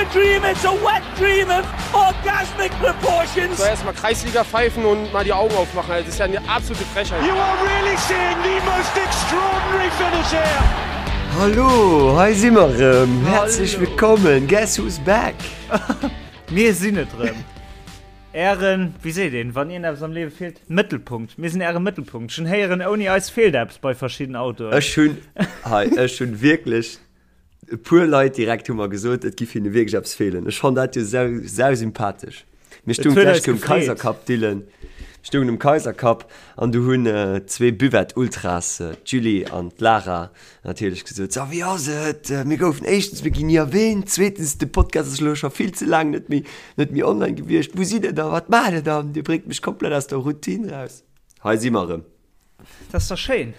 a dream, it's a wet dream of orgasmic proportions. So erstmal Kreisliga pfeifen und mal die Augen aufmachen. Das ist ja eine absolute Frechheit. You are really seeing the most extraordinary finish here. Hallo, hei si mer erëm. Häerzlech wëllkommen. Guess who's back? Mir sinn et erëm. Ären, wéi seet een, wann iergendeppes am Liewe feelt? Mëttelpunkt. Mir sinn äre Mëttelpunkt. Ech hunn héieren, ouni eis feelt eppes bei verschidden Autoen. Ech hunn, hei, ech hunn wierklech e puer Leit direkt hu mer gesot, et giff hinne wierklech eppes feelen. Ech fann dat jo sau, sau sympathesch. Mir Et stoungen huet d'lescht eis Kéier um gefreet. Kaisercup, Dylan. Mir stoungen um Kaisercup an du hunn zwee Buvette-Ultras, d'Julie an d'Lara, natierlech gesot, So, wéi ass et? Mir goufen éischtens, mir ginn ni erwähnt, zweetens, de Podcast ass elo scho vill ze laang net méi, net méi online gewiescht. Wou sidd Der da? Wat maacht Der dann? Dir bréngt mech komplett aus der Routine raus. Hei si mer erëm. Dat ass da schéin.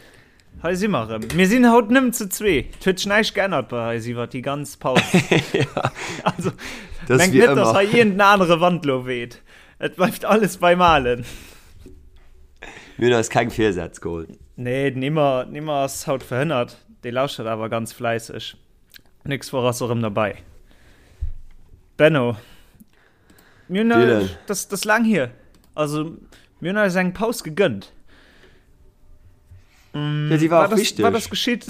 Hei si mer erëm. Mir sinn haut nëmmen zu zwee. Et huet sech näischt geännert bei eis iwwer déi ganz Paus. Also, Das mengt wie net, dass ëmmer. hei iergend en anere Wand lo weht. Et bleift alles beim Alen. Mir hunn eis keng Virsätz geholl. Nee, den Immer, den Immer ass haut verhënnert. Dee lauschtert awer ganz fläisseg. Nächst Woch ass e rëm derbäi. Benno, mir hunn, Dylan. das, das laang hier. Also, mir hunn eis eng Paus gegënnt. Ja, déi war Wat och ass, wichteg. wat ass geschitt?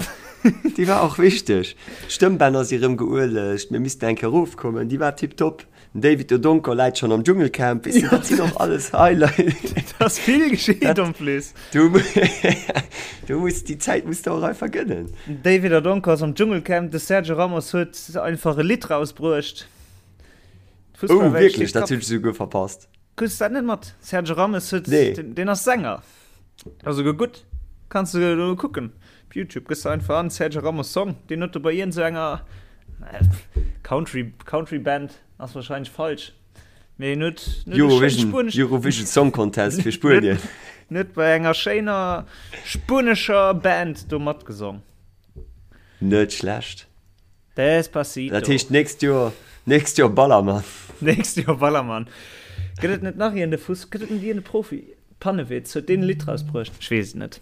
Déi war och wichteg. D'Stëmmbänner si rëm geuelegt, mir missten eng Kéier erofkommen. Déi war tiptop. Den David Odonkor läit schonn am Dschungelcamp. Weess de, dat sinn och alles Highlights. Et ass vill geschitt en plus. Du, du muss, déi Zäit muss de och einfach gënnen. Den David Odonkor ass am Dschungelcamp, de Sergio Ramos huet einfach e Lidd rausbruecht. Oh, D'Fussballwelt wierklech? steet Dat Kapp. hunn ech esouguer verpasst. Krus dat net mat? Sergio Ramos huet, Nee. den, den ass Sänger. Ass esouguer gutt. Kanns du do kucken. Op Youtube gëss du einfach an Sergio Ramos Song. Deen huet do bei iergend sou enger Country, Country Band ass wahrscheinlech falsch. Mee en huet, en huet e schéint Eurovision, spuenesch. Eurovision Song Contest fir Spuenien. En huet bei enger schéiner spuenescher Band do matgesong. Net schlecht. Despacito. Dat heescht nächst Joer, nächst Joer Ballermann. Nächst Joer Ballermann. Gëtt et net nach iergend e Fuss, gëtt et net iergend e Profi? Pannewitz, huet deen e Lidd rausbruecht? Ech weess et net.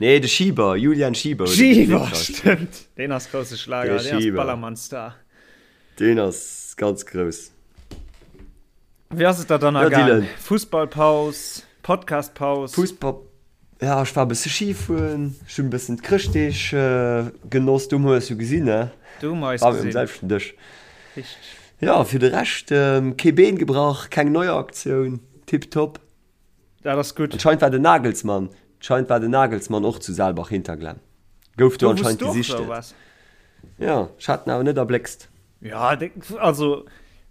Nee, de Schieber, Julian Schieber huet e Lidd Schieber, rausbruecht. stëmmt. Deen ass grousse Schlager, De deen ass Schieber. Ballermann-Star. Deen ass ganz grouss. Wéi ass et der dann Ja, ergaang? Dylan. Fussballpaus, Podcastpaus? Fussball, Ja, ech war e bësse Ski fueren, ech hunn e bëssen d'Chrëschtdeeg genoss, du hu mer eis jo gesinn, ne? Du hu mer eis War mir um gesinn. selwechten Dësch. Richteg. Ja, fir de Rescht, kee Been gebrach, keng Neuaktioun, tiptop. Dat ass gutt. Anscheinend war den Nagelsmann, anscheinend war den Nagelsmann och zu Saalbach-Hinterglemm. Gouf do Do wous anscheinend du och gesichtet. do waars? Ja, ech hat en awer net erbléckst. Ja, also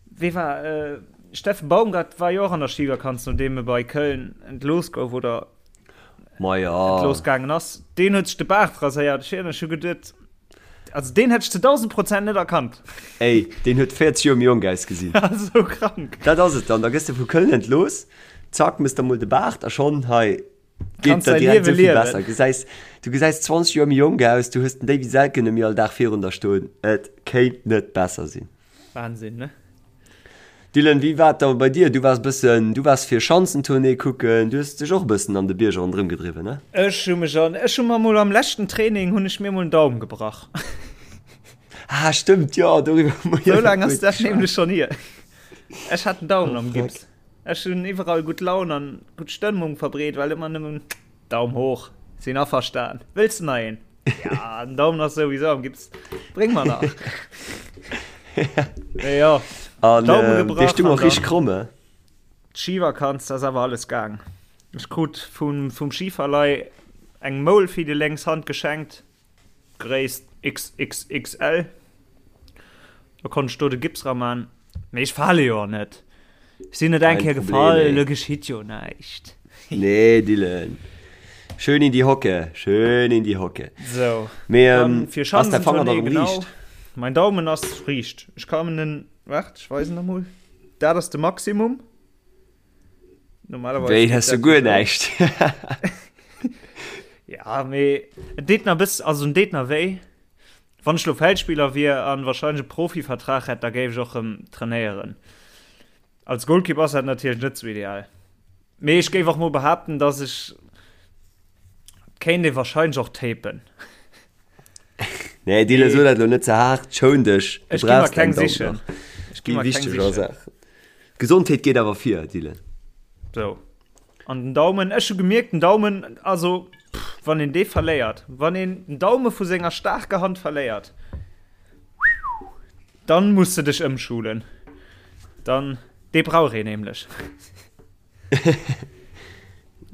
wee war äh, Steffen Baumgart war jo och an der Skivakanz, nodeem e bei Köln entlooss gouf oder Ma ja. entlooss gaangen ass. Deen huet sech de Baart raséiert. Ech hu geduet, also deen hätt ech zu 1000 Prozent net erkannt. Ey, deen huet 40 Joer méi jonk ausgesinn. Sou krank. Dat ass et dann, da gëss de vu Köln entlooss, zack, mëss der mol de Baart a schonn hei geet der direkt esou vill besser. Gesäis, du gesäis 20 Joer méi jonk aus, du hues den Davy Selke net méi all Dag virun der stoen. Et kéint net besser sinn. Wahnsinn, ne? Dylan, wéi war et da bei dir? Du waars bëssen, du waars fir Schanzentournée kucken, du hues dech och e bëssen an de Bierger ronderëm gedriwwen, ne? Ech hu mech an, ech hu mer mol am leschten Training hunn ech mir mol en Daum gebrach. Ah, stëmmt, jo, doriwwer hu mer jo Sou laang nach ass guer dat net nämlech geschwat. schonn hier. Ech hat en Daumen Oh, am fuck. Gips. Ech hunn iwwerall gutt Laun an gutt Stëmmung verbreet, well ëmmer nëmmen Daum hoch, sinn averstan. Wëlls de nach een? Ja, den Daumen ass souwisou am Gips. Bréng mer nach. Mee jo, An Daume ähm, dee gebrach stung an och richteg dann kromm, eh? d'Schivakanz, da ass awer alles gaang. Ech krut vum, vum Schiverlei eng Moul fir déi lénks Hand geschenkt. Gréisst XXXL. Da konnt ech do de Gips ra man. Mee ech fale jo och net. Ech sinn net eng Kein Kéier Problem, gefall, ey. elo geschitt jo näischt. Nee, Dylan. Schön in die Hocke, schön in die Hocke. Sou, Mee dann ähm, fir ass däi Fanger da Schanzentournée, rëm genau. riicht? Mein Daumen ass riicht. Ech kann en, waart, ech weisen der mol. Dat ass de Maximum. Normalerweis Wéi, geet hues du dat guer jo sou. näischt? Ja, mee et deet nach bëss, also en deet nach wéi. Wann ech lo Feldspiller wier an wahrscheinlech e Profivertrag hätt, da géif ech och rëm trainéieren. Als Golkipp ass dat natierlech net sou ideal. Mee ech géif och mol behaapten, dass ech, et kéint ee wahrscheinlech och tapen. Nee, Dylan, so dat lo net ze haart. Schoun dech. Du Ech gi mer brauchst keng däin Daumen sichen. nach. Ech gi Déi mer keng wichteger sichen. Saach. Gesondheet geet awer vir, Dylan. So. An den Daumen, ech hu gemierkt, den Daumen, also, pff, wann een dee verléiert, wann een den Daume vu senger staarker Hand verléiert, dann muss de dech ëmschulen. Dann, dee brauch een nämlech.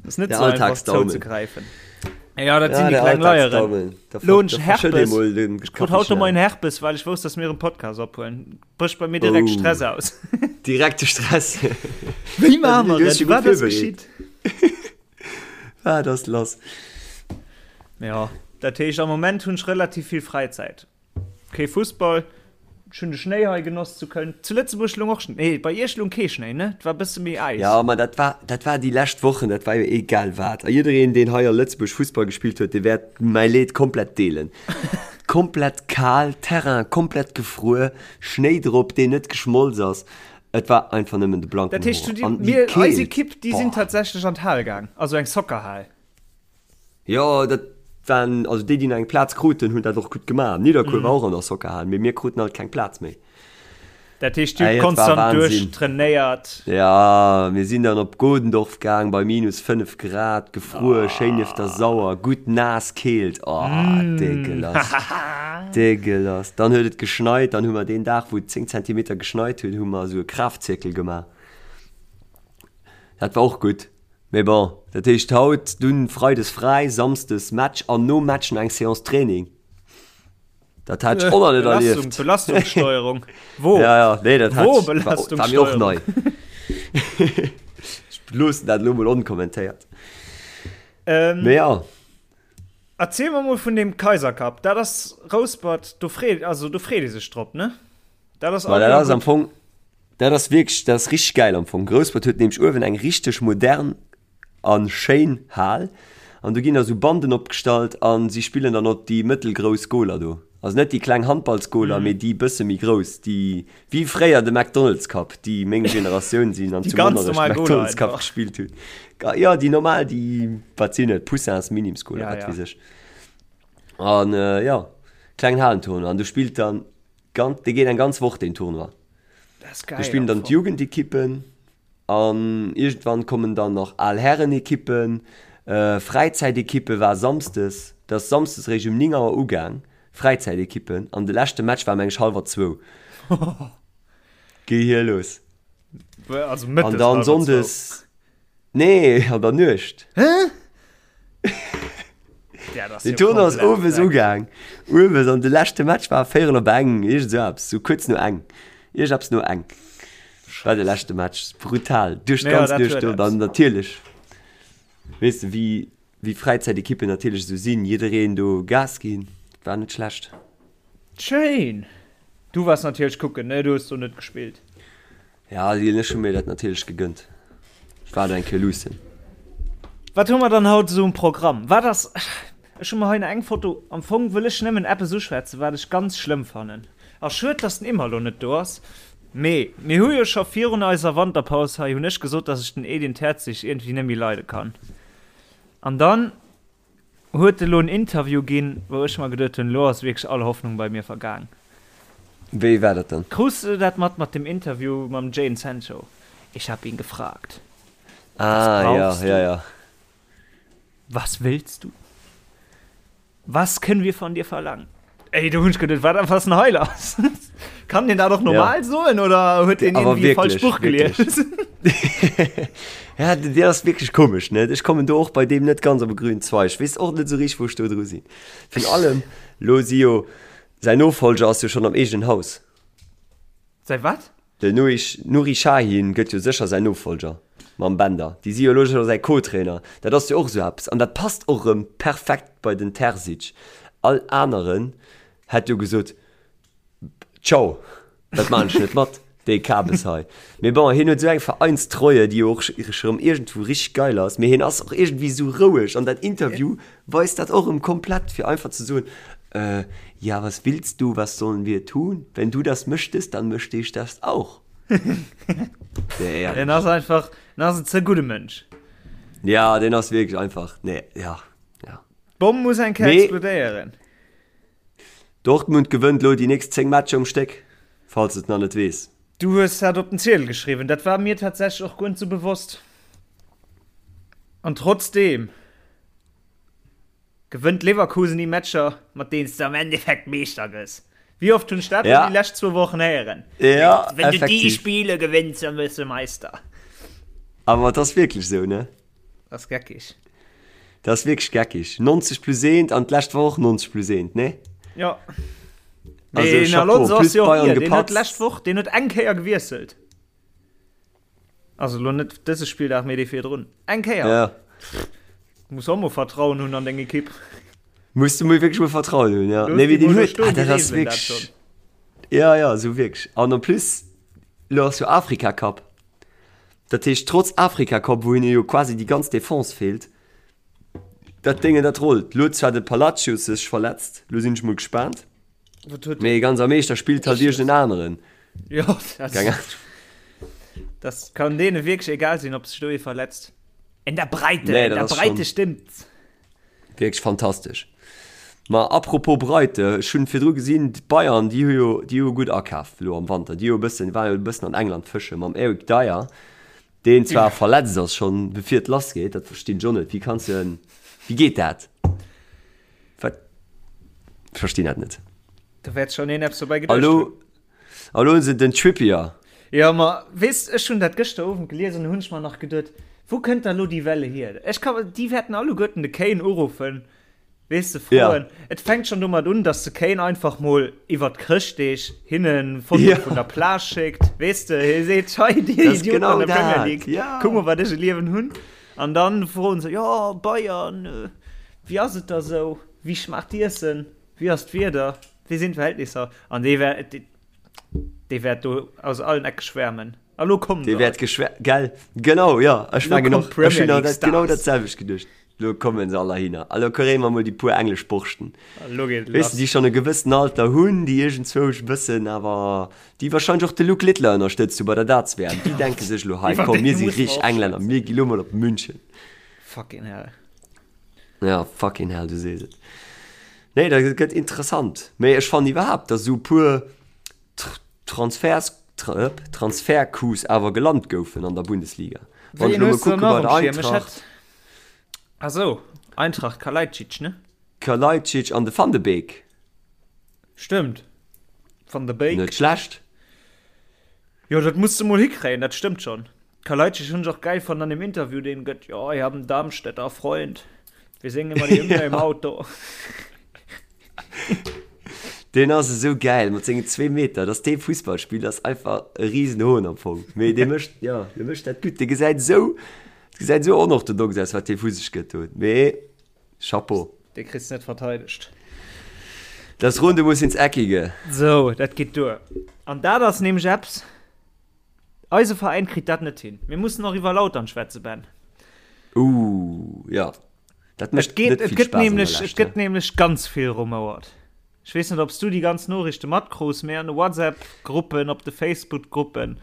Das net Der so einfach Alltagsdaumen. zouzegräifen. Ja, dat Ja, sinn déi der kleng Leieren. Alltagsdaumen. Da Lo hunn da ech verschëtt Herpes. ee mol den Ech krut haut de Kaffeechen. Moien Herpes, well ech wousst, dass mir en Podcast ophuelen. Brécht bei mir direkt Oh. Stress aus. Direkte Stress. Wéi maache mer Du hues et? dech Wat gutt ass virbereet. geschitt? Wat ass lass? Ja, dat heescht, am Moment hunn ech relativ vill Fräizäit. Kee Fussball. Ech hunn de Schnéi hei genoss zu Köln. Zu Lëtzebuerg loung och Schnéi. Nee, bei iech loung kee Schnéi, ne? Et war e bësse méi Äis. Jo, ma dat war, dat war déi lescht Wochen, dat war jo egal wat. A jiddereen, deen hei a Lëtzebuerg Fussball gespillt huet, dee wäert mäi Leed komplett deelen. Komplett kal, Terrain komplett gefruer, Schnéi drop, deen net geschmolz ass. Et war einfach nëmmen de blanken Dat heescht, Horror. du, An déi mir, eis Keelt, Ekipp, déi sinn boah. tatsächlech an d'Hal gaang. Also eng Soccerhal. Jo, dat waren, also déi, déi nach eng Plaz kruten, hunn dat och gutt gemaach. Nidderkuer war och an der Soccerhal, mee mir kruten alt keng Plaz méi. Dat heescht, dir Ey, hutt et war konstant Wahnsinn. duerchtrainéiert. Ja, mir sinn dann op Godendorf gaang bei minus 5 Grad, gefruer, schéin nieft der Sauer, gutt naass Keelt, oh, dégueulasse, dégueulasse. Dann huet et geschneit, dann hu mer deen Dag, wou et 10 Zentimeter geschneit huet, hu mer esou e Kraftzirkel gemaach. Dat war och gutt. Mee bon, dat heescht haut dunn Freides fräi, Samsdes Match an nom Match nach eng Séance Training. Dat hat ech och nach net erlieft. Belastungssteuerung. Wo? Ja, ja, nee, dat hat Wo ech, war, war mir och nei. Ech loossen dat elo mol onkommentéiert. Ähm, Mee ja. Erziel mer mol vun deem Kaiser Cup. Dat ass Rouspert, do freet, also do freet ee sech drop, ne? Dat ass, Ma dat ass am Fong, dat ass wierklech, dat ass richteg gäil am Fong. Rouspert huet nämlech uewen eng richteg modern a schéin Hal an do ginn da sou Banden opgestallt a si spillen dann op déi mëttelgrouss Goler do. Also net déi kleng Handballsgoler, mee déi bësse méi grouss, déi wéi fréier de McDonald's Cup, déi meng Generatioun sinn an zu Monnerech de McDonald's Cup gespillt hunn. Jo, déi normal, déi, wat sinn et, Poussins, Minims-Goler, wat weess ech. An jo, klengen Halentournoi an do spillt dann Ganz, dee geet eng ganz Woch deen Tournoi. Dat ass geil. Do spillen dann d'Jugendekippen an iergendwann kommen dann nach al Härenekippen, Fräizäitekippe war samsdes, dat ass samsdes eréischt um 9 Auer ugaang, Fräizäitekippen an de leschte Match war meng ech hallwer zwou. Gehier los. Also mëttes An dann hallwer zwou. sonndes. Nee, an der Nuecht. Hä? Ja, das Den Tournoi ass owes ugaang. Owes an de leschte Match war véierel op eng, iergend esou eppes, sou kuerz no eng. Iergend eppes no eng war de leschte Match. Brutal. Duerch Ja, d'ganz dat Nuecht huet do. Dann eppes. natierlech, weess de, wéi, wéi Fräizäitekippen natierlech esou sinn, jiddereen do Gas ginn. War net schlecht. Schéin! Du waars natierlech kucken, ne? Du hues do net gespillt. Ja, Lil, ech hu mir dat natierlech gegënnt. Ech war do eng Kéier luussen. Wat hu mer dann haut esou um Programm? Wat ass, ech hu mer hei eng Foto, am Fong wëll ech nëmmen eppes uschwätzen, wat ech ganz schlëmm fannen. A schued, dass den Imma lo net do ass. Mee mir hu jo scho virun eiser Wanterpaus hei, hunn ech gesot, dass ech den Edin Terzic iergendwéi net méi leide kann. An dann Huet elo en Interview ginn, wou ech mer geduet hunn, elo ass wierklech all Hoffnung bei mir vergaang. Wéi war dat dann? Krus de dat mat mat dem Interview mam Jadon Sancho? Ich hab ihn gefragt. Ah, Was ja, brauchst ja, du? ja. Was willst du? Was können wir von dir verlangen? Ey, do hunn ech geduet, wat ass denn hei lass? Kann deen dat och normal soen oder huet deen Awer irgendwie falsch wierklech, Buch wierklech. gelies? Ja, den deen ass wierklech komesch, ne? Ech kommen do och bei deem net ganz op e grünen Zweig. Ech weess och net esou richteg, wou ech do dru sinn. Virun allem, lo si jo, säin Nofolger ass jo schonn am eegenen Haus. Säi wat? Den Nuri Sahin gëtt jo sécher säin Nofolger mam Bender. Déi si jo elo scho säi Co-Trainer. Dat ass jo och esou eppes. An dat passt och erëm perfekt bei den Terzic. All aneren hätt jo gesot, Ciao, dat maan ech net mat, dee Kabes hei. Mee bon, hien huet esou eng Vereinstreue, déi jo och erëm iergendwou richteg geil ass. Mee hien ass och iergendwéi esou roueg. An dat Interview weist dat och erëm komplett, fir einfach ze soen, Äh, ja, was willst du, was sollen wir tun? Wenn du das möchtest, dann möchte ich das auch. Nee, ehrlich. Den ass einfach, den ass en ze gudde Mënsch. Ja, den ass wierklech einfach, nee, ja, ja. D'Bomm muss eng Kéier Mee explodéieren. Dortmund gewënnt elo déi nächst 10 Matcher um Stéck, falls de et nach net weess. Du hues dat op den Ziedel geschriwwen, dat war mir tatsächlech och guer net sou bewosst. An trotzdeem gewënnt Leverkusen déi Matcher, mat deenen s de am Endeffekt Meeschter gëss. Wéi oft hunn ech dat ja. déi lescht zwou Wochen héieren? Ja, Wenn du déi Spiele gewënns, dann wëss du Meister. Awer et ass wierklech sou, ne? Dat ass geckig. Dat ass wierklech geckig. 90 plus 1 an d'lescht Woch och 90 plus 1, ne? Ja. Also, Den Chapeau, Alonso plus ass jo och Bayern hier. Den huet gepatzt. d'lescht Woch, den huet eng Kéier gewiesselt. Also lo net dëse Spilldag, mee dee virdrun. Eng Kéier. Ja. Muss och mol Vertrauen hunn an deng Ekipp. Muss du mol wierklech mol Vertrauen hunn, ja. Looss Nee, mee déi den mol do huet, stoen, ah, déi dat ass reegelen dat wierklech. schonn. Ja, ja, esou wierklech. An en plus, lo ass jo Afrika Cup. Dat heescht, trotz Afrika Cup, wou hinne jo quasi déi ganz Defense feelt, dat Déngen, dat rollt. Lo huet zwar de Palacios sech verletzt, lo sinn ech mol gespaant. Wat huet Mee ganz am Eescht, da spillt halt iergend en aneren. Jo, dat, Keng Ahnung. das kann deene wierklech egal sinn, ob sech do ee verletzt. In der Breite, Nee, in dat der ass Breite schon- stimmt's. Wierklech fantastesch. Ma apropos Breite, ech hunn virdru gesinn, d'Bayern, déi hu jo, déi hu gutt akaf elo am Wanter. Déi hu e bëssen, waren jo e bëssen an England fësche mam Eric Dier, deen zwar verletzt ass schonn bevir et lass geet. Dat verstinn ech och net. Wéi kanns de, wéi geet dat? Wat? Ech verstinn dat net. Da wäert schonn een eppes dobäi A geduecht lo, hunn. a lo hunn se den Trippier. Jo, ma weess, ech hunn dat gëschter Owend gelies an hunn ech mer nach geduet, wou kënnt da lo déi Welle hier? Ech ka, déi wäerten alleguerten de Kane uruffen, weess de, froen. Ja. Et fänkt schonn domat un, dass de Kane einfach mol iwwert d'Chrëschtdeeg hinne Fotoe Ja. vun der Plage schéckt, weess de, hie seet, hei dir Dat ass Idioten genau an der Premier dat, League, ja. kuck mol wat ech e Liewen hunn. An dann froen se, jo, Bayern, wéi ass et da sou, wéi schmaacht d'Iessen, wéi ass d'Wieder, wéi sinn d'Verhältnisser? An dee wär, dee wäert do aus allen Ecke schwärmen. A lo kommen Dee se wäert all. geschwär, gell? Genau, jo, ech Lo mengen kommen och, ech d'Premier hunn League dat genau Stars. dat selwecht geduecht. Lo kommen se all heihinner. A lo kréie mer mol déi puer englesch Borschten. A lo geet et Weess de, lass. déi schonn e gewëssen Alter hunn, déi iergendzwousch e bëssen awer, déi wahrscheinlech och de Luke Littler ënnerstëtzt hu bei der Darts-WM, déi denke sech elo, hei, Iwwer komm, déi mir si musse mer richteg och Englänner, schwätzen. mir gi lo mol op München. Fucking hell. Ja, fucking hell, du sees et. Nee, dat gëtt interessant. Mee ech fannen iwwerhaapt, datt esou e puer Transfers, Transfercoups awer gelant goufen an der Bundesliga. Wann ech Wéi elo mol hues du kucke nach bei um der Schierm? Ech Eintracht. hätt. Ah sou, Eintracht, Kalajdzic, ne? Kalajdzic an de Van de Beek. Stëmmt. Van de Beek. Net schlecht. Jo, dat muss de mol hikréien, dat stëmmt schonn. Kalajdzic hunn ech och gäil fonnt an dem Interview, deen gëtt, Jo, ich hab einen Darmstädter Freund, wir singen immer die Hymne im Auto. Deen ass esou gäil mat sengen zwee Meter, dass dee Fussball spillt ass einfach e Risenhohn am Fong. Mee dee mécht, jo, dee mécht dat gutt. Dee gesäit esou, gesäit esou onorthodox aus, wat dee vu sech gëtt do. Mee Chapeau. Dee kriss de net verteidegt. Das Runde muss ins Eckige. Sou, dat geet duer. An dat ass nämlech eppes, eise Veräin kritt dat net hin. Mir mussen och iwwer Lautern schwätzen, Ben. Ooh, jo. Dat Et mécht geet, net et vill gëtt Spaass an der nämlech, et Lescht, gëtt ne? nämlech ganz vill rumouert. Ech weess net, ob s du déi ganz Noriichte matkruus, mee an de WhatsApp-Gruppen, op de Facebook-Gruppen.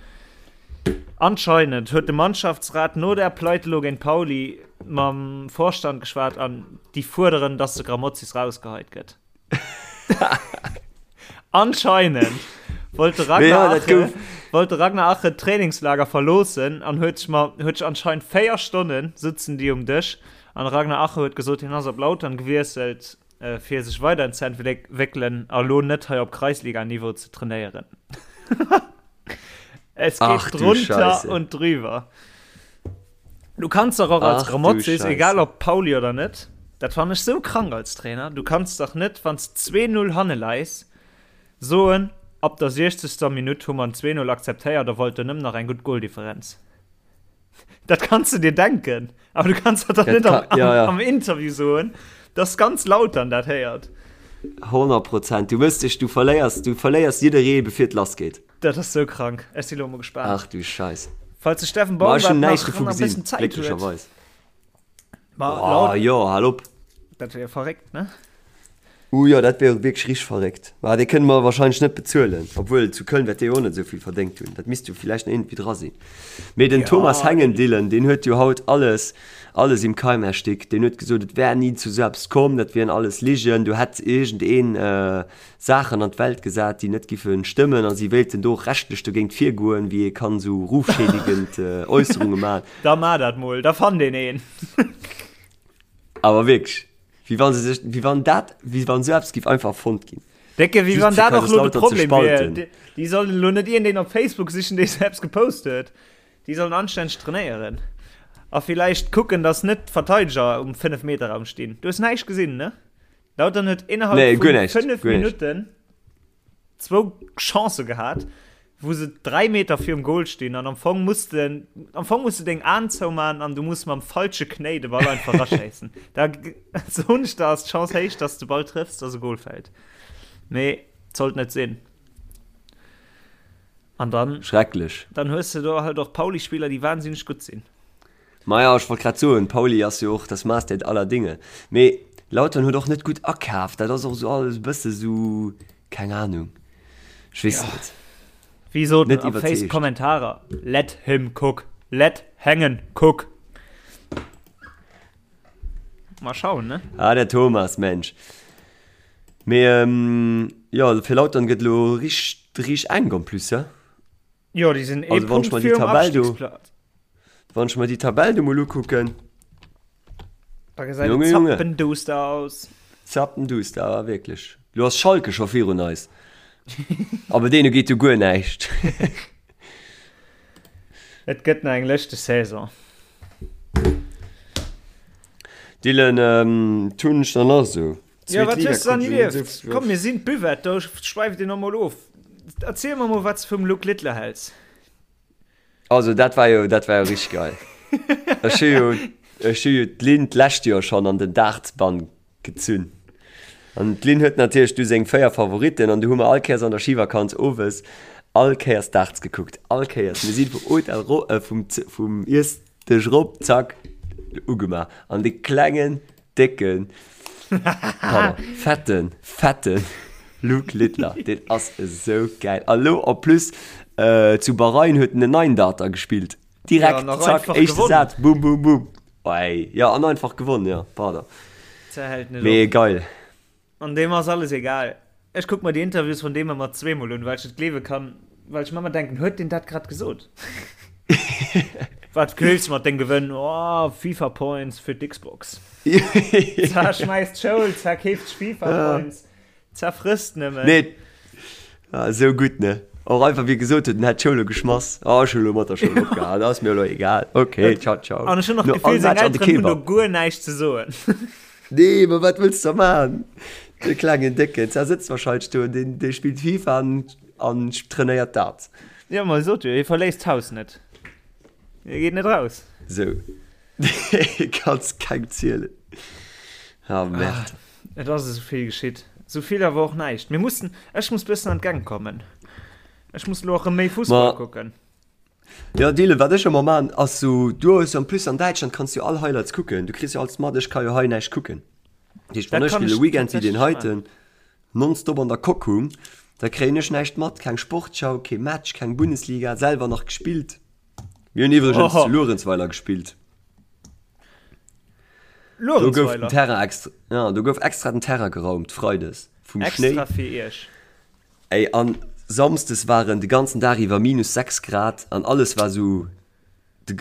Anscheinend huet de Mannschaftsrat no der Pleite lo géint Pauli mam Vorstand geschwat an déi fuerderen, dass de Grammozis rausgeheit gëtt. Anscheinend wollt de Mee Ragnar ja, dat Ache, gouf. wollt de Ragnar Ache d'Trainingslager verloossen an huet sech ma, huet sech anscheinend 4 Stonnen sëtzen déi um Dësch an de Ragnar Ache huet gesot, hien ass op Lautern gewiesselt, fir sech weider ze entwéckelen a lo net hei op Kreisliga-Niveau ze trainéieren. Es geht Ach du drunter Scheiße. und drüber. Du kanns dach och als Ach du Grammozis, egal Scheiße. ob Pauli oder net, dat fannen ech sou krank als Trainer, du kanns dach net, wann s 2-0 hanne leis, soen, ab der 60. Minutt hu mer en 2-0 akzeptéiert a wollten nëmmen nach eng gutt Goldifferenz. Dat kanns du dir denken, awer du kanns dat dach Dat net am, ka, ja, ja. am Interview soen, dass ganz Lautern dat héiert. 100 Prozent. Du mëss dech, du verléiers, du verléiers jidderee bevir et lass geet. Dat ass sou krank. Ech si lo mol gespaant. Ach du Scheiß. Falls de Steffen Ma ech Baumgart hunn näischt nach dovu nach e gesinn, bëssen Zäit huet. glécklecherweis. Ma Oh laut, jo, hal op. dat wär verréckt, ne? Uh jo, dat wär wierklech richteg verréckt. Mä dee kënne mer wahrscheinlech net bezuelen. Obwuel, zu Köln wäert dee jo och net esou vill verdéngt hunn. Dat misst jo villäicht nach iergendwéi dra sinn. Mee den Thomas Hengen-Dillen, deen huet jo haut alles, alles im Keim erstickt. Deen huet gesot, et wär ni zu esou eppes komm, dat wieren alles Ligen, do hätt iergendeen Saachen an d'Welt gesat, déi net giffe stëmmen a si wéilten do och rechtlech dogéint virgoen, wéi ee kann esou rufschädigend Äusserunge maachen. Da maach dat mol, da fannt een een. Awer wierklech, wéi wa se sech, wéi wann dat, wéi wann esou eppes giff einfach erfonnt ginn. Décke, wéi wann dat och elo de Problem wier. Déi sollen elo net iergendeen op Facebook sichen, dee sou eppes gepost huet. Déi sollen anstänneg trainéieren. A villäicht kucken, dass net d'Verteideger um Fënnef-Meter-Raum stinn. Du hues näischt gesinn, ne? Lautern huet innerhalb nee, vun 5 Minutten zwou Chancë gehat, wou se 3 Meter virum Goal stinn an am Fong muss de, am Fong muss du deng Aen zouman an du muss mam falsche Knéi de Ball einfach raschéissen. Da soen ech der, ass d'Chance héich, dass de Ball trëffs, dass e Goal fält. Mee sollt net sinn. An dann Schrecklech. Dann hues de do halt och Pauli-Spiller, déi wahnsinneg gutt sinn. Maja, ech wollt grad soen, Pauli ass jo och das Maß der aller Dinge. Mee Lautern huet och net gutt akaaft, dat ass och esou alles e bësse sou, keng Ahnung, ech weess net. Wéi soten Net am Face iwwerzeegt. Kommentarer, Let him cook, let Hengen cook. Mal schauen, ne? Ah, der Thomas, Mensch. Mee jo, fir Lautern gëtt elo richt, richt enk en plus, he? Jo, déi sinn ee Also wann ech Punkt mer déi virum Tabell do, Abstiegsplatz. wann ech mer déi Tabell do mol ukucken, Da gesäit et Junge, Junge. zappenduster aus. Zappenduster, awer wierklech. Lo ass Schalke scho virun eis. Aber deene geet jo guer näischt. Et gëtt nach eng lëschteg Saison. Dylan, ähm, tun ech dann nach esou. Ja, wat hues du dann erlieft? Komm, mir sinn d'Buvette, do schwäift een och mol of. Erziel mer mol, wat s de vum Luke Littler häls. Also dat war jo, dat war jo richteg geil. Ech hu jo, ech hu jo d'Lynn d'lescht Joer schonn an den Dartsbann gezunn. An d'Lynn huet natierlech du seng 4 Favoritten an du hu mer all Kéiers an der Schivakanz owes all Kéiers Darts gekuckt. All Kéiers. Mir si vum Hotel ro, äh, vum, vum Iessdësch rop, zack, ugemaach. An de klengen Décken, pardon, fetten, fetten Luke Littler, deen ass esou gäil. A lo en plus zu Bahrain huet en en neien Darter gespillt. Direkt, Ja, nach zack, einfach éischte gewonnen. Saz, bum, bum, bum. Ey, ja, an einfach gewonnen, ja, pardon. Zerhält net Mee op. geil. An deem ass alles egal. Ech kuck mer déi Interviews vun deem ëmmer zweemol un, well ech net gleewe kann, well ech mer ëmmer denken, huet deen dat grad gesot? Wat wëlls mat dengem Gewënn? Oh, FIFA Points fir d'Xbox. Za schmäisst d'Schoul, za keeft sech FIFA Points, za frësst nëmmen. Nee, ah, esou gutt, ne? Och einfach wéi e gesot huet, en hätt d'Schoul elo geschmass. Oh, ech hu elo mat der Schoul opgehal, ass mir elo egal. Okay, ciao, ciao. An ech hunn och No d'Gefill, all seng Match an de Elteren hunn do Kebab. guer näischt ze soen. Nee, ma wat wëlls de da maachen? De klengen Décken, der sëtzt wahrscheinlech do, deen, dee spillt FIFA an, an trainéiert dat. Jo, ma sot jo, hie verléisst d'Haus net. Hie geet net raus. Sou. Kanns keng zielen. Ah, Merde. Ah, et ass esou vill geschitt. Esou vill awer och näischt. Mir mussen, ech muss bëssen an d'Gäng kommen. Ech muss elo och erëm méi Fussball Ma. kucken. Jo Dylan, wat ech ëmmer maan ass sou, du hues en plus an Däitschland kanns du all Highlights kucken, du kriss jo alles mat, ech ka jo hei näischt kucken. Dat heescht wann Dat ech kann e ech Weekend wéi deen tatsächlech heiten nonstop an der Coque hung, da kréien ech näischt mat, keng Sportschau, kee Match, keng Bundesliga, selwer nach gespillt. Mir hunn iwwregens Oho. zu Luerenzweiler gespillt. Do gouf den Luerenzweiler? Terrain extra, ja, do gouf extra den Terrain geraumt freides vum Schnéi. Extra fir iech. Ey an Samsdes waren de ganzen Dag iwwer minus 6 Grad an alles war sou,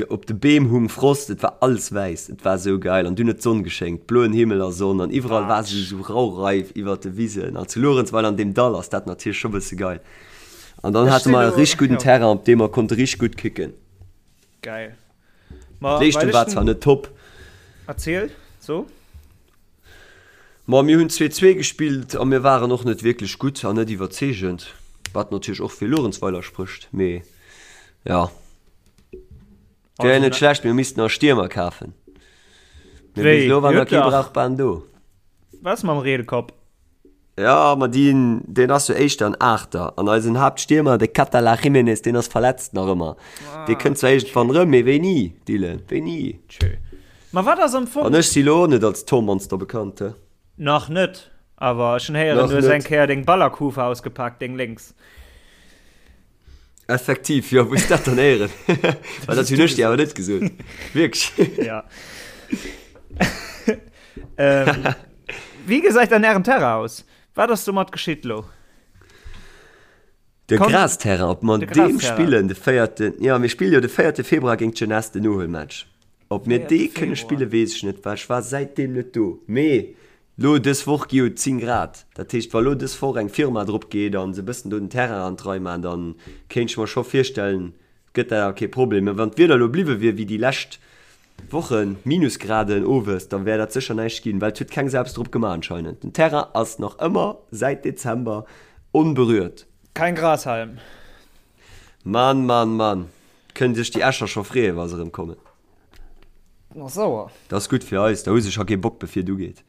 op de Beem hung Frost, et war alles wäiss, et war sou geil an dunn huet d'Sonn geschéngt, bloen Himmel a Sonn an iwwerall war sou sou Raureif iwwert de Wisen an zu Luerenzweiler an deem Dall ass dat natierlech scho bësse geil an dann Ech hate sinn mer e elo, richteg gudden jo. Terrain op deem mer konnte richteg gutt kicken. Geil. Ma well D'Leeschtung ech war den. zwar net top. Erziel, so. Ma mir hunn 2, 2 gespillt a mir waren och net wierklech gutt an net iwwerzeegend, wat natierlech och fir Luerenzweiler sprécht. Mee jo, wär jo net schlecht, mir missten nach Stiermer kafen. Mee bis elo war nach kee Brauchbaren do. Wat ass mam Reelkopp? Jo, ma deen, deen ass jo éischter en Aachter. An eisen Haaptstiermer, de Catala Jiménez, deen ass verletzt nach ëmmer. Dee kënnt zwar iergendwann erëm, mee wéini, Dylan, wéini? Tjö. Ma wat ass am Fong. An ech si lo och net als Tormonster bekannt, he? Nach net. Awer ech hunn héieren, du hues eng Kéier deng Ballerkufe ausgepaakt, deng lénks. Effektiv, jo, wou hues dat dann héieren? Well dat hunn ech dir awer net gesot. Wierklech? Ja. ähm, wéi gesäit dann ären Terrain aus? Wat ass domat geschitt lo? De Grasterrain, ob mer deem spillen de véierten, jo mir spille jo de véierte Februar géint d'Jeunesse den Nohuelmatch. Ob mir dee kënne spille weess ech net, well ech war säitdeem net do. Mee lo dës Woch gi jo 10 Grad, dat heescht wa lo dës Woch eng Firma drop geet a se bëssen do den Terrain an d'Rei maachen, da kéint ech mer scho virstellen, gëtt dat awer kee Problem. Mä wann d'Wieder elo bliwwe wier wéi déi lescht Wochen, Minusgraden owes, da wär dat sécher näischt ginn, well et huet keng Sau eppes drop gemaach anscheinend. Den Terrain ass nach ëmmer säit Dezember onberührt. Kein Grashalm. Mann, Mann, Mann, kënnen sech déi Escher scho freeën, wa se erëm kommen. Ass sauer. Dat ass gutt fir eis, da hu se scho kee Bock bevir et ugeet.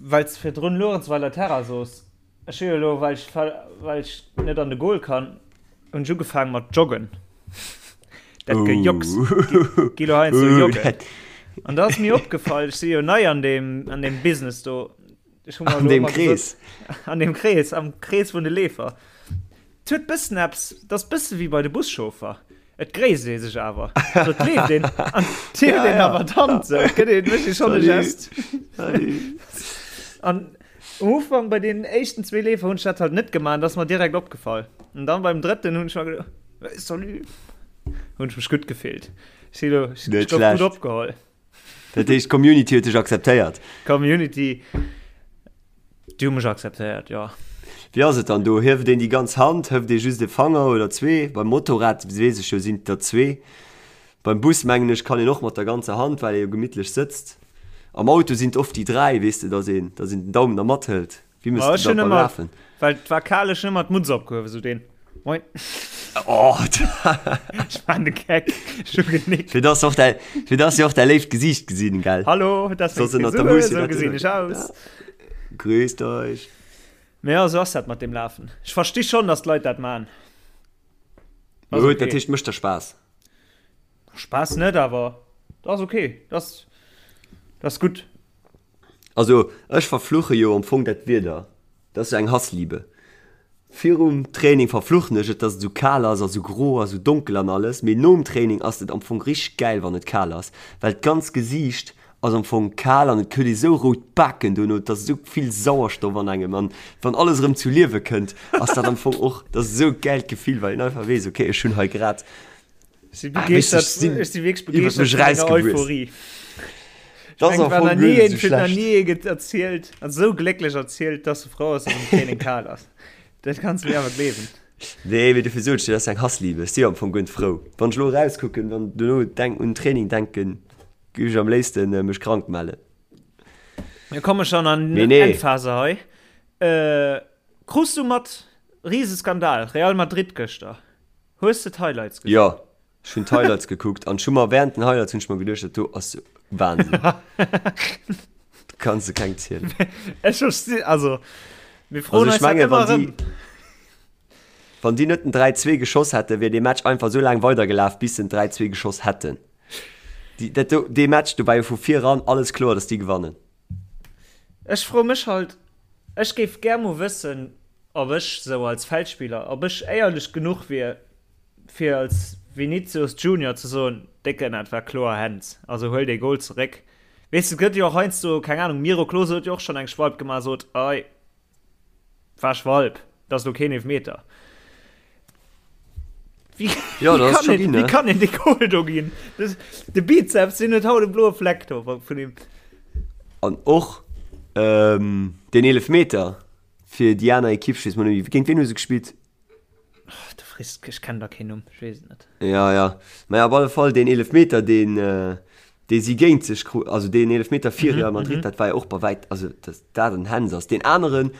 Well s de virdrun Luerenzweiler Terrain soos, Ech hu jo elo, well ech, well ech net an de Goal kann, hunn ech ugefaangen mat joggen. Dat Gejocks, gi lo heiansdo joggen. An da ass mir opgefall, ech si jo nei an deem, an deem Business do. Ech hu mer An deem Krees. An deem Krees, am Krees vun de Leefer. Et huet bëssen eppes, et ass bësse wéi bei de Buschauffer. Et gréisst ee sech awer. So, et leeft een an et hieft een awer d'Hand sou. Et gëtt een, mécht ee schonn e Gest. An um Ufank bei deenen éischten zwee Leefer hunn ech dat halt net gemaach an dat ass mer direkt opgefall. An dann beim drëtten hunn ech mer geduecht, Hey, salut! Hunn ech mech gutt gefillt. Ech si lo, ech Net gouf gutt schlecht. opgeholl. Dat heescht, d'Community huet dech akzeptéiert. D'Community. Déi hu mech akzeptéiert, jo. Wéi ass et dann do? Hieft een déi ganz Hand, hëft ee just e Fanger oder zwee? Beim Motorrad weess ech jo, sinn et der zwee. Beim Bus mengen ech kann een och mat der ganzer Hand, well ee jo gemittlech sëtzt. Am Auto sinn et oft déi dräi, weess de, dass een, dass een den Daumen da mathëlt. Wéi méchs de Ech dat hunn beim ëmmer, Lafen? well et war kal, ech hunn ëmmer d'Mutz opgehuewen, sou deen Moin. Oh, Ech war de Geck, ech hu genickt. fir dass och däi, fir dass se och däi léift Gesiicht gesinn, gell? Hallo, dat ass meng Soss ënnert der Frisur, Mousse sou dat gesinn ech aus. Grüßt euch. Mee jo, sou ass dat mat deem Lafen. Ech versti schonn, dass d'Leit dat man. Ass Gut, dat okay. heescht, mécht der Spaass. Spaass net, awer dat ass okay. Dat ass, dat ass gutt. Also ech verfluche jo am Fong dat Wieder. Dat ass jo eng Hassliebe. Virum Training verfluchen ech et, dass et esou kal ass a sou gro a sou donkel an alles, mee nom Training ass et am Fong richteg gäil wann et kal ass, well d'ganz Gesiicht ass am Fong kal an et huet ee sou rout Baken dono, et ass esou vill Sauerstoff an engem an wann alles erëm zu Liewe kënnt, ass dat am Fong och, dat ass esou e gäilt Gefill, well een einfach weess, okay ech hunn hei grad Ech si begeeschtert, ech si wierklech begeeschtert vun denger Euphorie. Dat ass am Fong guer net esou schlecht. Nach ni een erzielt, an esou glécklech erzielt, dass e frou ass, dass am Training kal ass. Dat kanns de mir awer gleewen. Nee, mee dofir sot ech dir, dat ass eng Hassliebe. Ech si am Fong guer net frou. Wann ech elo erauskucken, wann dono denk un Training denken, géif ech am léifste mech krank mellen. Mir komme schon an d'Endphase hei. Äh, krus du mat, Riseskandal, Real Madrid gëschter. Hues de d'Highlights gesinn? Jo, ech hunn d'Highlights gekuckt an ech hu mer während den Highlights hunn ech mer geduecht, dat do ass Wahnsinn. Dat kanns de kengem zielen. Ech versti, also mir froen Also ech eis dat menge ëmmer wann erëm. déi, wann déi net den 3, 2 geschoss hätten, wier dee Match einfach esou laang weidergelaf, bis se den 3, 2 geschoss hätten. Déi, dat do, dee Match, do war jo vu viran alles kloer, datt déi gewannen. Ech froe mech halt, ech géif gär mol wëssen, ob ech sou als Feldspiller, ob ech éierlech genuch wier, fir als Vinicius Junior ze soen, Décken, dat war kloer Hands, also huel dee Goal zeréck. Weess de, et gëtt jo och heiansdo, keng Ahnung, Miro Klose huet jo och schonn eng Schwalb gemaach, sot, Ei, war Schwalb, dat ass elo keen Eelfmeter. Wéi, Ja, wéi dat ass kann scho een, ginn, wéi ne? kann een dee Goal do ginn? Das, de Bizeps, deen huet haut e bloe Fleck do vun him. An och ähm, deen Eelefmeter fir déi aner Ekipp, ech weess mol net méi, géint wien hu se gespillt? Oh, du frees, ech kennen da keen Numm, ech weess et net. Ja, ja. Mä op alle Fall deen Eelefmeter, deen, äh, dee si géint sech kru, also deen Eelefmeter fir Real Madrid, dat war jo och bei wäit, also dass dat en Hands ass. Deen aneren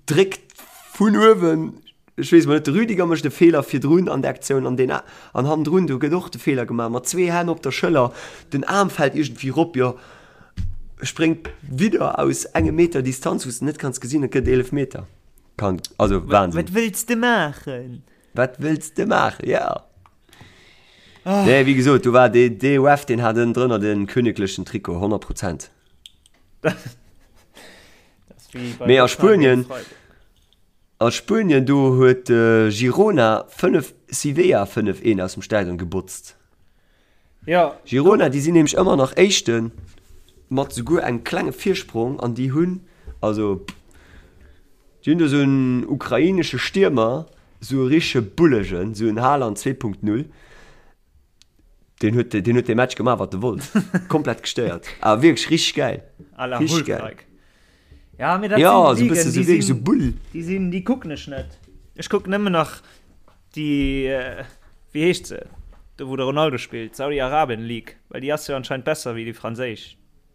dréckt vun uewen, ech weess mol net, de Rüdiger mécht e Feeler virdrun an der Aktioun an deen an hannendrun, do gëtt och de Feeler gemaach mat zwee Hänn op der Schëller, den Aarm fält iergendwéi rop, jo spréngt widder aus engem Meter Distanz, wou s de net kanns gesinn, et gëtt Eelefmeter. Kann, also Wahnsinn. Wat wëlls de maachen? Wat wëlls de maachen, ja. Oh. Nee, wéi gesot, do war dee, dee Ref, deen hat ënnendrënner de königlechen Trikot, 100 Prozent. Dat. Wéi bei Mee a Hoffenheim géint Spuenien, Freiburg. a Spuenien do huet Girona 5 Sevilla 5 1 aus dem Stadion gebotzt. Ja. Girona, déi sinn nämlech ëmmer nach Éischten, mat souguer engem klenge Virsprong an déi hunn, also déi hunn do esou en ukrainesche Stiermer, esou e richtege Bullegen, esou en Haaland 2.0, deen huet, deen huet dee Match gemaach wat e wollt, komplett gestéiert, awer wierklech richteg gäil, À la richteg gäil. Hulk-like. Ja, mee dat Ja, sinn esou e bësse Ligen, esou déi wierklech esou sinn, Bull. déi sinn, déi kucken ech net. Ech kucken nëmmen nach Déi, wéi heescht se, do wou de Ronaldo spillt, d'Saudi-Arabien League, well déi ass jo anscheinend besser wéi déi franséisch.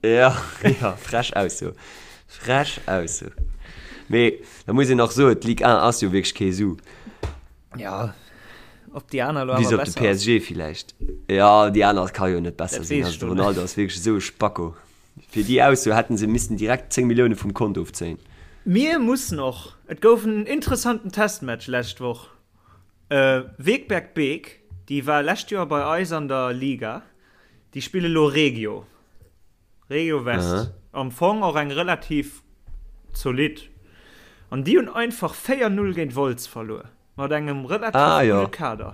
Ja, ja, frech Ausso. Frech Ausso. Mee da muss een och soen, d'Ligue 1 ass jo wierklech kee Su. Ja, ob déi aner elo Bis awer op de besser ass. PSG villäicht. Ja, déi aner ka jo net besser Dat sinn. weess Also ech de lo net. Ronaldo ass wierklech esou e Spacko. Fir déi Ausso hätten se missten direkt 10 Millioune vum Kont ofzéien. Mir mussen och, et gouf en interessanten Testmatch lescht Woch, Wegberg Beek, déi war lescht Joer bei eis an der Liga, déi spille lo Regio, Regio West, am Fong och eng relativ zolidd, an déi hunn einfach 4, 0 géint Wolz verluer, mat engem relativ gudde Kader.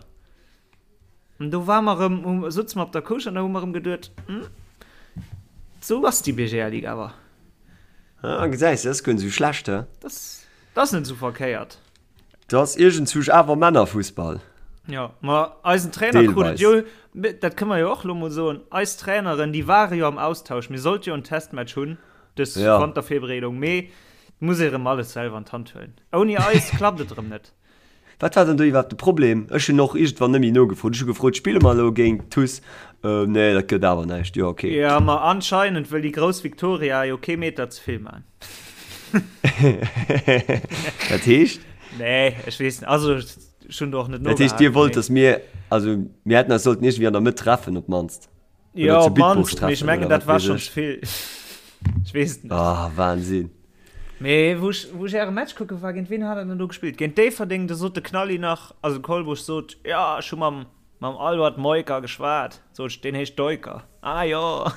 An do ware mer erëm, sutze mer op der Couche an da hu mer erëm geduet, Hm, esou ass déi BGL-Ligue awer. Ah, gesäis de, dat ass guer net esou schlecht, he? Dat ass net esou verkéiert. Dat ass iergendzwousch awer Männerfussball. Jo, ma eisen Trainer krut et jo, dat kënne mer jo och elo mol soen, eis Traineren, déi ware jo am Austausch. Mir sollte jo en Testmatch hunn dës Wantervirbereedung, mee et muss ee erëm alles selwer an d'Hand huelen. Ouni eis klappt et erëm net. Wat war dann do iwwerhaapt de Problem? Ech hunn och iergendwann net méi nogefrot. Ech hu gefrot, Spille mer elo géint d'TuS? Nee, dat gëtt awer näischt. Jo, okay. Jo, ma anscheinend wëll déi grouss Victoria jo kee Meter ze vill man. Dat heescht? Nee, ech weess net. Also, ech hunn do och net Dat heescht, nogehakt, Dir wollt, mee. datt mir, also mir hätten eis sollten iergendwéi an der Mëtt treffen op d'mannst. Jo, Oder zu op Bitburg d'mannst, mee ech treffen mengen, oder dat wat war weess schonn ech. ze vill. Ech weess et net. Ah, Wahnsinn. Mee wou ech, wou ech äre Match kucke war, géint wien hat der denn do gespillt? Géint Déifferdeng, do sot de Knalli nach, also de Kolbusch sot, jo, ech hu mam, mam Albert Meuker geschwat. Sot ech, deen heescht Deuker. Ah jo.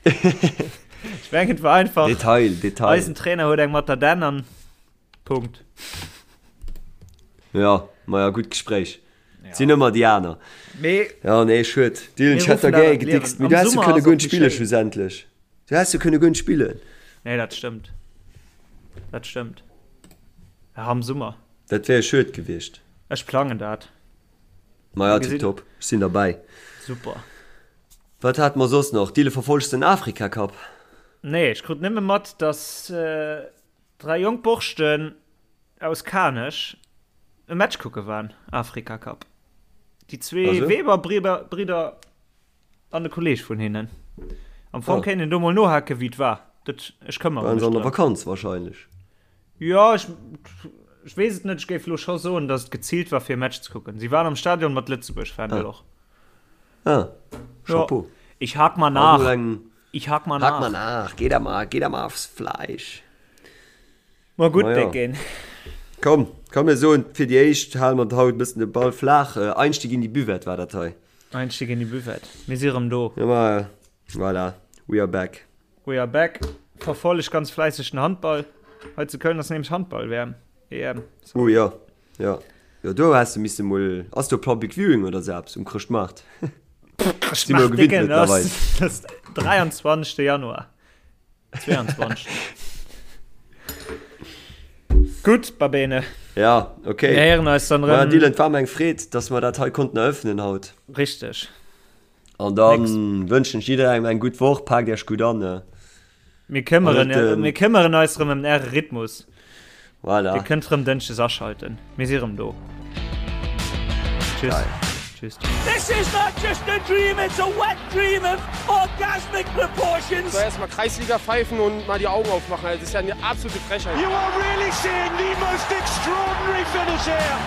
Ech mengen, et war einfach, Detail, Detail. eisen Trainer huet eng mat der Dänn an Punkt. Ja, maja, gutt Gespréich. Ja. Sinn ëmmer déi aner. Mee Ja, nee, schued. Dylan, mir ech hätt ruffen der dat gär an d'Liewen. gedickst, mee Am du häss jo Summer kënne ass guer och net méi spille schéin. schlussendlech. Du häss jo kënne guer net spillen. Nee, dat stëmmt. Dat stëmmt. Ja, am Summer. Dat wär schued gewiescht. Ech plangen dat. Maja, Mir gesinn. tiptop. Ech sinn derbäi. Super. Wat hate mer soss nach? Dylan, verfollegt de den Afrika Cup? Nee, ech krut nëmme mat, dass 3 jonk Borschten aus Kanech e Match kucke waren, Afrika Cup. Déi zwee Also? Weber-Bridder an e Kolleeg vun hinnen. Am Fong Ah. kéint een do mol nohake wéi et war. Dat, ech këmmere Waren mech se an der drëm. Vakanz wahrscheinlech. Jo, ech, ech weess et net. Ech géif elo scho soen, datt et geziilt war fir e Match ze kucken. Si waren am Stadion mat Lëtzebuerg-Fändel Ah. och. Ah, Jo. Chapeau. Ich hak mal Ass nach. mol eng. Ich hak mal Hak mal nach. nach. Geh da mal, geh da mal aufs Fleisch. Ma gutt, Maja. Décken. Komm, komm mir soen fir déi éischt hale mer haut e bëssen de Ball flaach. Einstieg in die Buvette war dat hei. Einstieg in die Buvette. Mir si rëm do. Ja, ma voilà, we are back. We are back. Verfolleg ganz fläisseg den Handball. Hei zu Köln ass nämlech Handball-WM, EM, Oh jo, jo, jo, do häss de misse mol, ass do Public Viewing oder sou eppes um Chrëschtmaart? Si mer jo Chrëschtmaart, gewinnt Décken, dat mëttlerweil. ass, dat ass 23. Januar. 22. Gutt, Babene. Ja, okay. Mir héieren eis dann Ma erëm. Dylan, et war mer eng Freed, dass mer dat hei konnten eröffnen haut. Richteg. An dann wënschen ech jidderengem eng gutt Woch. Paakt Iech gutt an. Mir këmmeren, An et, mir këmmeren eis erëm ëm Äre Rhythmus. Voilà. Dir kënnt rëm Dënschdes aschalten. Mir si rëm do. Tschüss. Geil. Tschüss. This is not just a dream, it's a wet dream of orgasmic proportions. So erstmal Kreisliga pfeifen und mal die Augen aufmachen. Also das ist ja eine absolute Frechheit. You are really seeing the most extraordinary finish here.